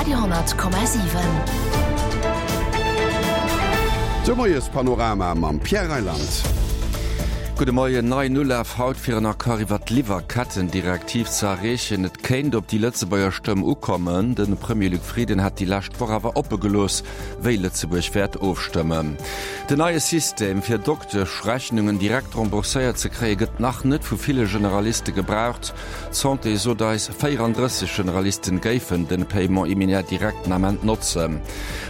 Radio,7. De Moiespanorama mam Pierre Reyland. Gudde Moien. Neien Ulaf haut fir en Accord iwwer d'Liwwerkettendirektiv ze erreechen. Et kéint op déi Lëtzebuerger Stëmm ukommen. De Premier Luc Frieden hat déi lescht Woch awer oppe gelooss, wéi Lëtzebuerg wäert ofstëmmen. Den neie System fir Dokteschrechnungen direkt rembourséiert ze kréie gëtt nach net vu ville Generaliste gebraucht. D'Santé sot eis, 34 Generalisten géifen den Paiement immédiat direct den Ament notzen.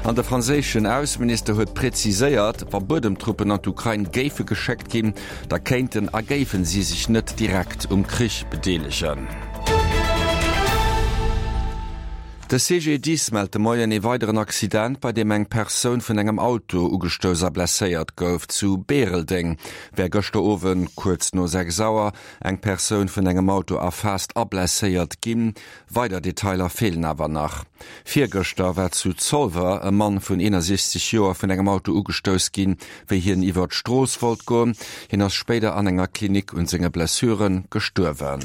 An de franséischen Ausseminister huet präziséiert, wa Buedemtruppen an d'Ukrain géife geschéckt ginn, da kéinten a géifen si sech net direkt um Krich bedeelegen. De CGDIS mellt de Moien ee weideren Accident, bei deem eng Persoun vun engem Auto ugestouss a blesséiert gouf. Zu Bäreldeng wär gëschter Owend kuerz no 6 Auer Eng Persoun vun engem Auto erfaasst a blesséiert ginn. Weider Detailer feelen awer nach. Virgëschter war zu Zolwer e Mann vun 61 Joer vun engem Auto ugestouss ginn, wéi hien iwwer d'Strooss wollt goen. Hien ass spéider an enger Klinik un senge Blessure gestuerwen.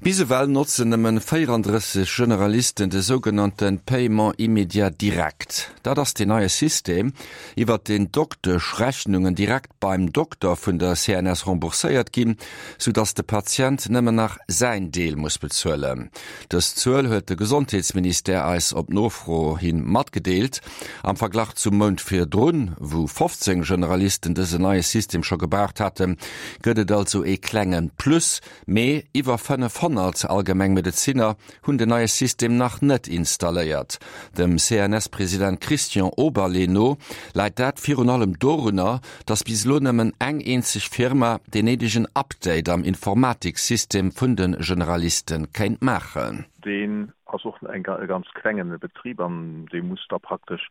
Bis ewell notzen nëmmen 34 Generalisten de sougenannte Paiement immédiat direct. Dat ass deen neie System, iwwert deen d'Dokteschrechnungen direkt beim Dokter vun der CNS rembourséiert ginn, sou dass de Patient nëmmen nach säin Deel muss bezuelen. Dës Zuel huet de Gesondheetsministère eis op Nofro hi matgedeelt. Am Verglach zum Mount virdrun, wou 15 Generalisten dësen neie System scho gebraucht haten, gëtt et also ee klenge Plus. Mee iwwer 500 Allgemengmedezinner hunn den neie System nach net installéiert. Dem CNS-President Christian Oberlé no läit dat virun allem dorunner, datt bis elo nëmmen eng eenzeg Firma deen néidegen Update am Informatiksystem vun de Generaliste kéint maachen. Deen ass och e ganz klengen Betrib an dee muss da praktesch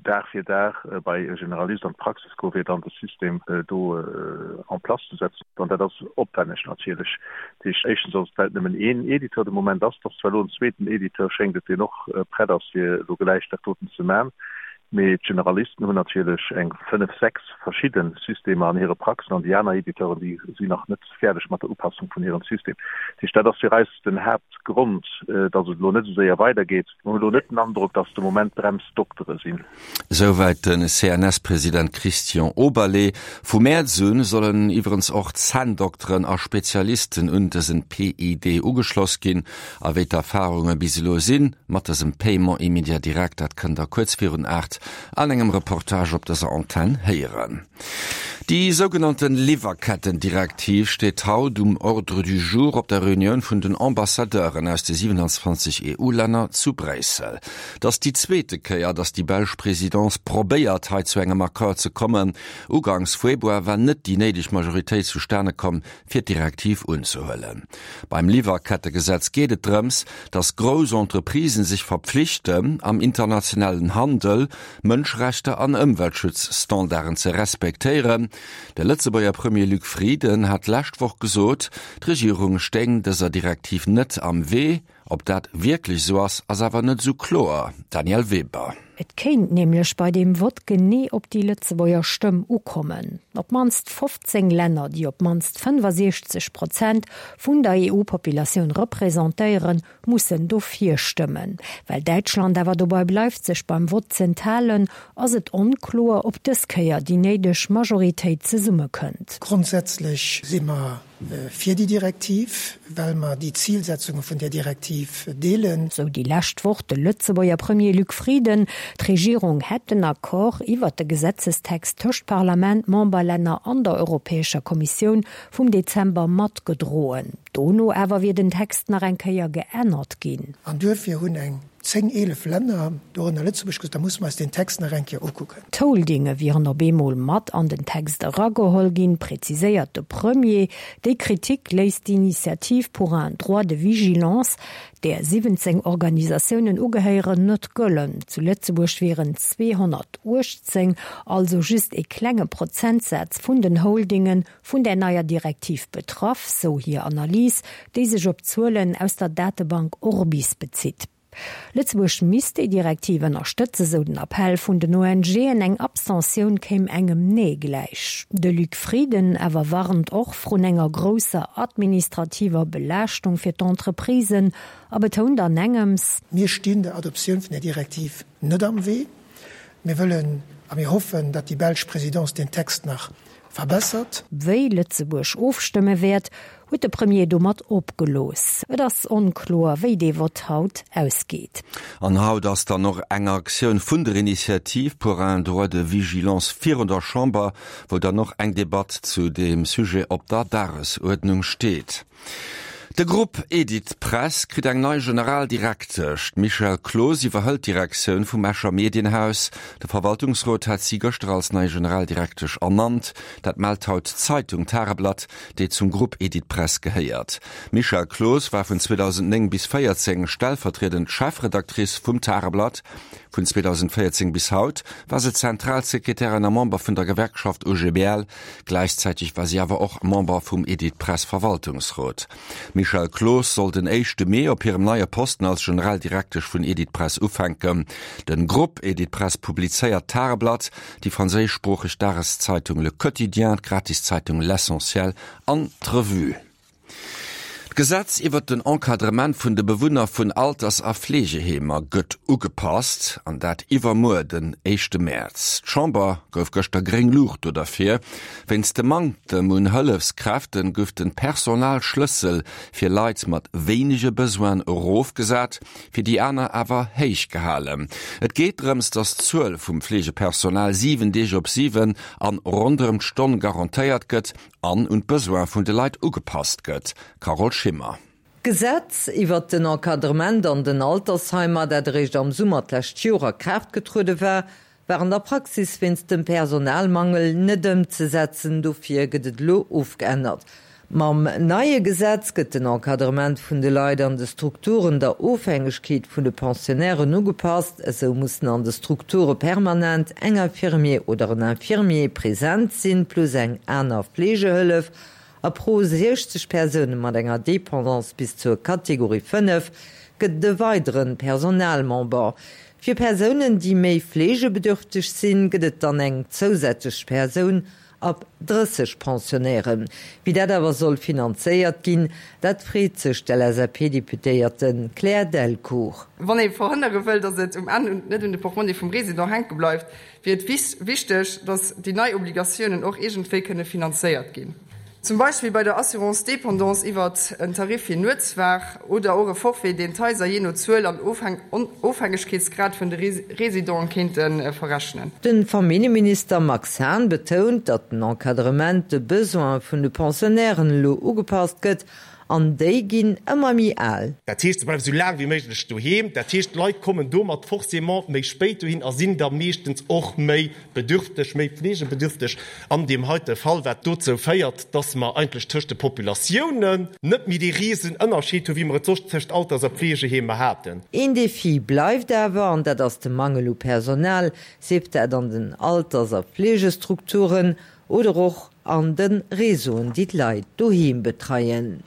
Dag fir Dag bei e Generalist an d'Praxis goen, fir dann de System do en place ze setzen. An dat ass opwänneg natierlech. Dat heescht, éischtens ass et, well et nëmmen een Editeur de Moment ass. Et ass zwar elo en zweeten Editeur, schéngt et, deen och prett ass, fir elo gläich dat doten ze man. Mee d'Generalisten hunn natierlech eng fënnef, sechs verschidde Systemer an hire Praxen an déi aner Editeuren, déi sinn nach net fäerdeg mat der Upassung vun hirem System. Dat heescht, dat ass fir eis den Haaptgrond, datt et elo net esou séier weidergeet. Mer hunn elo net den Androck, datt de Moment d'Bremsdoktere sinn. Souwäit de CNS-President Christian Oberlé. Vu Mäerz u sollen iwwerens och Zänndokteren a Spezialisten un dësen PID ugeschloss ginn. A wéi d'Erfarunge bis elo sinn mat dësem Paiement immédiat direct, dat kënnt der kuerz virun 8 an engem Reportage op dëser Antenn héieren. Déi sougenannte Liwwerkettendirektiv steet haut um Ordre du jour op der Reunioun vun den Ambassadeuren aus de 27 EU-Länner zu Bréissel. Et ass déi zweete Kéier, datt déi belsch Presidence probéiert, hei zu engem Accord ze kommen. Uganks Februar war net déi néideg Majoritéit zustane komm, fir d'Direktiv unzehuelen. Beim Liwwerkettegesetz geet et drëms, datt grouss Entreprisen sech verpflichten, am internationalen Handel Mënschrechter an Ëmweltschutzstandarden ze respektéieren. De Lëtzebuerger Premier Luc Frieden hat d'lescht Woch gesot, d'Regierung stéing dëser Direktiv net am Wee. Ob dat wierklech esou ass, ass awer net esou kloer. Danièle Weber. Et kéint nämlech bei deem Vott genee op déi Lëtzebuerger Stëmm ukommen. Op d'mannst 15 Länner, déi op d'mannst 65 Prozent vun der EU-Populatioun representéieren, mussen dofir stëmmen. Well Däitschland awer dobei bleift, sech beim Vott z'enthalen, ass et onkloer, ob dës Kéier déi néideg Majoritéit zesummekënnt. Grondsätzlech si mer fir déi Direktiv, well mer déi Zilsetzunge vun där Direktiv deelen. Sou déi lescht Woch de Lëtzebuerger Premier Luc Frieden. D'Regierung hätt den Accord iwwert de Gesetzestext tëscht Parlament, Memberlänner an der Europäescher Kommissioun vum Dezember matgedroen. Dono awer wier den Text nach eng Kéier geännert ginn. An duerfir hunn eng 10, 11 Länner, dorënner Lëtzebuerg, gesot, da musse mer eis deen Text nach eng Kéier ukucken. D'Holdinge wieren op eemol mat an den Text erageholl ginn, präziséiert de Premier. Déi Kritik léisst d'Initiative pour un droit de vigilance, där 17 Organisatiounen ugehéieren, net gëllen. Zu Lëtzebuerg wieren 218, also just ee klenge Prozentsaz vun den Holdingen, vun där neier Direktiv betraff, sou hir Analys, déi sech op Zuelen aus der Datebank Orbis bezitt. Lëtzebuerg misst déi Direktiv ënnerstëtzen, sou den Appell vun den ONGen. Eng Abstentioun kéim engem Nee gläich. De Luc Frieden awer warnt och vrun enger grousser administrativer Belaaschtung fir d'Entreprisen a betount an engems, Mir stinn der Adoptioun vun där Direktiv net am Wee. Mir wëllen a mir hoffen, datt déi belsch Présidence deen Text nach verbessert. Wéi Lëtzebuerg ofstëmme wäert, huet de Premier domat opgelooss. Et ass onkloer, wéi dee Vott haut ausgeet. An haut ass dann och eng Aktioun vun der Initiative pour un droit de vigilance virun der Chamber, wou dann och eng Debatt zu deem Sujet op der Dagesuerdnung steet. De Grupp Editpress kritt eng nei Generaldirektesch. D'Michèle Cloos iwwerhëlt d'Direktioun vum Escher Medienhaus. De Verwaltungsrot hat si gëschter als nei Generaldirektesch ernannt. Dat mellt haut d'Zeitung Tageblatt, déi zum Grupp Editpress gehéiert. D'Michèle Cloos war vun 2009 bis 14 stellvertriedend Chefredactrice vum Tageblatt. Vun 2014 bis haut war se Zentralsekretärin a Member vun der Gewerkschaft OGBL. Gläichzäiteg war si awer och Member vum Editpress Verwaltungsrot. D'Michèle Cloos soll den éischte Mee op hirem neie Posten als Generaldirektesch vun Editpress ufänken. Den Grupp Editpress publizéiert d'Tageblatt, déi franséischsproocheg Dageszeitung Le Quotidien, d'Gratiszeitung L'Essentiel an d'Revue. D'Gesetz iwwert den Encadrement vun de Bewunner vun Alters a Fleegeheemer gëtt ugepasst, an dat iwwermuer, den éischte Mäerz. D'Chamber gouf gëschter gréng Luucht do derfir. Wéinst dem Manktem un Hëllefskräfte gouf de Personalschlëssel fir Leit mat wéinege Besoinen erofgesat, fir déi aner awer héich gehalen. Et geet drëms, datt d'Zuel vum Fleegepersonal 7 Deeg op 7 an ronderëm d'Stonn garantéiert gëtt an un d'Besoin vun de Leit ugepasst gëtt. Carole Schimmer. D'Gesetz iwwert den Encadrement an den Altersheimer, dat eréischt am Summer d'lescht Joer a Kraaft getruede war, war an der Praxis wéinst dem Personalmangel net ëmzesetzen. Dofir gëtt et elo ofgeännert. Mam neie Gesetz gëtt den Encadrement vun de Leit an de Strukturen der Ofhängegkeet vun de Pensionnairen ugepasst. Esou mussen an de Strukture permanent eng Infirmier oder en Infirmier present sinn, plus eng aner Fleegehëllef. A pro 60 Persoune mat enger Dépendance bis zur Kategorie 5 gëtt et e weidere Personalmember. Fir Persounen, déi méi fleegebedürfteg sinn, gëtt et dann eng zousätzlech Persoun Ab 30 Pensionnairen. Wéi dat awer soll finanzéiert ginn, dat freet sech d'LSAP-Deputéierte Claire Delcourt. Wann ee verhënnere wëll, datt et um Enn net un de Portmonni vum Resident hänke bleift, wier et wichteg, datt déi nei Obligatiounen och iergendwéi kënne finanzéiert ginn. Zum Beispill bei der Assurance dépendance iwwert en Tarif fir Nuetswaach oder och e Forfait, deen d'Haiser jee no Zuel an Ofhängegkeetsgrad vun de Residenten kéinte verrechnen. De Familljeminister Max Hahn betount, datt den Encadrement de Besoine vun de Pensionnairen elo ugepasst gëtt, an déi ginn ëmmer méi al. Dat heescht, se bleiwe sou laang wéi méiglech doheem. Dat heescht, d'Leit kommen domat forcément méi spéit dohin a sinn da meeschtens och méi bedürfteg, méi fleegebedürfteg an deem heite Fall, wat dozou féiert, dass mer eigentlech tëscht de Populatiounen net méi dee risen Ënnerscheed hu wéi mer et soss tëscht Alters a Fleegeheemer haten. Een Defi bleift awer, an dat ass de Mangel u Personal, sief dat an den Alters a Fleegestrukturen oder och an de Réseauen, déi d'Leit doheem betreien.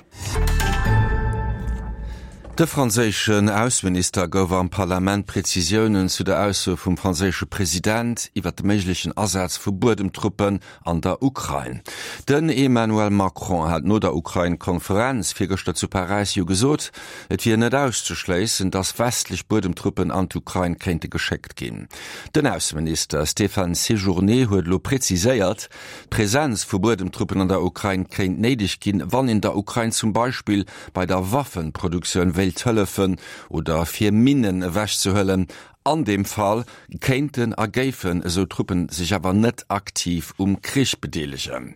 De franséischen Ausseminister gouf am Parlament Prezisiounen zu der Ausso vum franséische President iwwer de méiglechen Asaz vu Buedemtruppen an der Ukrain. Den Emmanuel Macron hat no der Ukrain-Konferenz virgëschter zu Paräis jo gesot, et wier net auszeschléissen, datt westlech Buedemtruppen an d'Ukrain kéinte geschéckt ginn. Den Ausseminister Stéphane Séjourné huet elo preziséiert, D'Presenz vu Buedemtruppen an der Ukrain kéint néideg ginn, wann een der Ukrain zum Beispill bei der Waffenproduktioun wéilt hëllefen oder fir Minnen ewechzehuelen. An deem Fall kéinten a géifen esou Truppen sech awer net aktiv um Krich bedeelegen.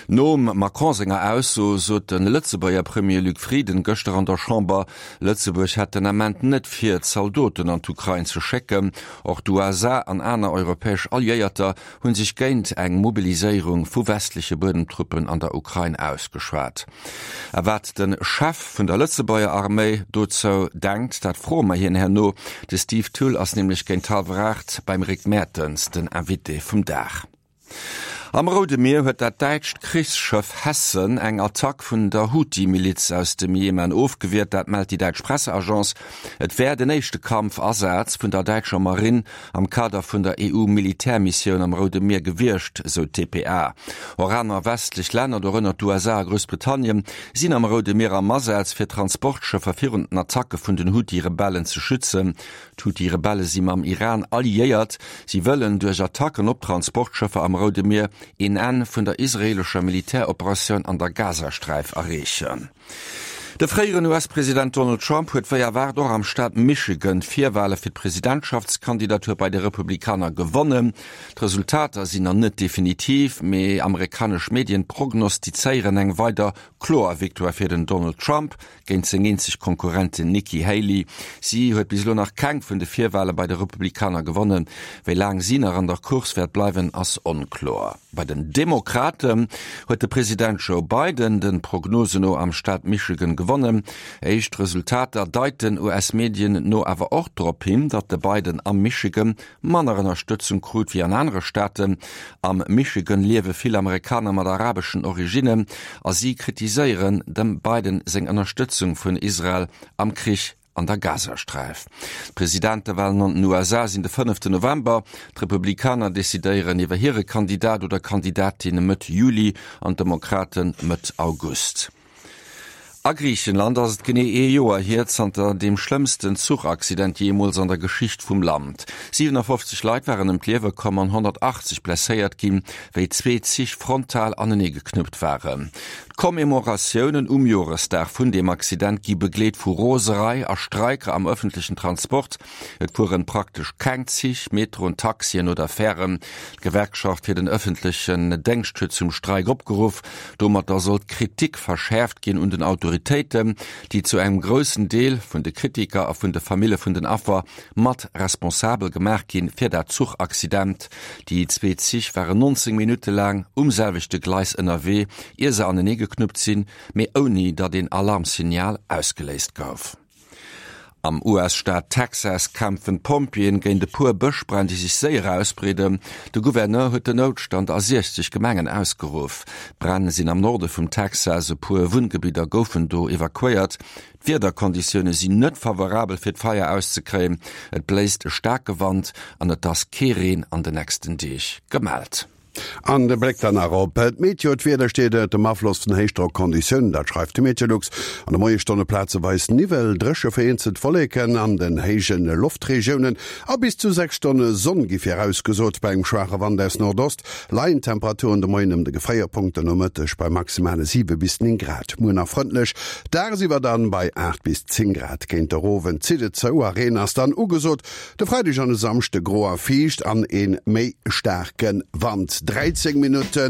Nom Macron senger Ausso sot de Lëtzebuerger Premier Luc Frieden gëschter an der Chamber, Lëtzebuerg hätt den Ament net vir, Zaldoten an d'Ukrain ze schécken. Och d'USA an aner europäesch Alliéierter hunn sech géint eng Mobiliséierung vu westleche Buedemtruppen an der Ukrain ausgeschwat. A wat de Chef vun der Lëtzebuerger Arméi dozou denkt, dat froe mer hien herno. De Steve Thull ass nämlech géint hallwer 8 beim Rick Mertens den Invité vum Dag. Am Roude Mier huet dat däitscht Krichsschëff Hessen eng Attack vun der Huthi-Miliz aus dem Jemen ofgewiert. Dat mellt déi däitsch Presseagence. Et wär den éischte Kampfasaz vun der däitscher Marinn am Kader vun der EU-Militärmissioun am Roude Mier gewiescht, sou d'dpa. Och aner westlech Länner, dorënner d'USA a Groussbritannien, sinn am Roude Mier am Asaz, fir Transportschëffer virun den Attacke vun den Huthi-Rebellen ze schützen. D'Huthi-Rebelle si mam Iran alliéiert. Si wëllen duerch Attacken op Transportschëffer am Roude Mier een Enn vun der israeelescher Militäroperatioun an der Gazasträif erreechen. De fréieren US-President Donald Trump huet wéi erwaart och am Staat Michigan d'Virwale fir d'Presidentschaftskandidatur bei de Republikaner gewonnen. D'Resultater sinn nach net definitiv, mee amerikanesch Medien prognostizéieren eng weider kloer Victoire fir den Donald Trump. Géint seng eenzeg Konkurrentin Nikki Haley. Si huet bis elo nach keng vun de Virwale bei de Republikaner gewonnen. Wéi laang si nach an der Course wäert bleiwen, ass onkloer. Bei den Demokraten huet de President Joe Biden de Prognosen no am Staat Michigan gewonnen. Éischt Resultater deiten US-Medien no awer och drop hin, datt de Biden am Michigan manner Ënnerstëtzung krut wéi an anere Staaten. Am Michigan liewe vill Amerikaner mat arabeschen Originnen a si kritiséieren dem Biden seng Ënnerstëtzung vun Israel am Krich an der Gazasträif. D'Presidentewalen an den USA sinn de fënneften November. D'Republikaner decidéieren iwwer hire Kandidat oder Kandidatin Mëtt Juli an d'Demokrate Mëtt August. A Griichenland ass et genee ee Joer hier zanter deem schlëmmsten Zuchaccident jeemools an der Geschicht vum Land. 57 Leit waren ëm d'Liewe komm an 180 blesséiert ginn, wéi zwee Zich frontal anenee geknuppt waren. D'Commemoratiounen um Joresdag vun deem Accident gi begleet vu Roserei a Streiker am ëffentlechen Transport. Et fueren praktesch keng Zich, Metroen, Taxien oder Fären. D'Gewerkschaft fir den ëffentlechen Déngscht huet zum Streik opgeruff. Domatter soll d'Kritik verschäerft ginn un den Autoritéiten, déi zu engem groussen Deel vun de Kritiker a vun de Famille vun den Affer mat responsabel gemaach ginn fir dat Zuchaccident. Déi zwee Zich waren 19 Minutte laang um selwechte Gleis ënnerwee, ier se anenee geknuppt sinn, mee ouni datt een Alarmsignal ausgeléist gouf. Am US-Staat Texas kämpfen d'Pompjeeën géint e puer Bëschbränn, déi sech séier ausbreeden. De Gouverneur huet den Noutstand a 60 Gemengen ausgeruff. D'Bränn sinn am Norde vum Texas, e puer Wunngebidder goufen do evakuéiert. D'Wiederkonditioune sinn net favorabel fir d'Feier auszekréien. Et bléist e staarke Wand an et ass kee Reen an de nächsten Deeg gemellt. An de Bléck dann nach op d'Meteo, D'Wieder steet ënnert dem Afloss vun Héichdrockonditiounen, dat schreift de Meteolux. An de Moiesstonne plazeweis Niwwel, dréche vereenzelt Wolleken an den héije Loftregiounen a bis zu 6 Stonne Sonn gi virausgesot. Bei engem schwaache Wand aus Nordost leien d'Temperaturen de Moien ëm de Gefréierpunkt, de Nomëtteg bei maximale 7 bis 9 Grad. Muer nach frëndlech, dagsiwwer dann bei 8 bis 10 Grad. Géint der Owend zitt et zou a Reen ass dann ugesot. De Freideg an e Samschde gro a fiicht an een méi staarke Wand. 13 Minutten.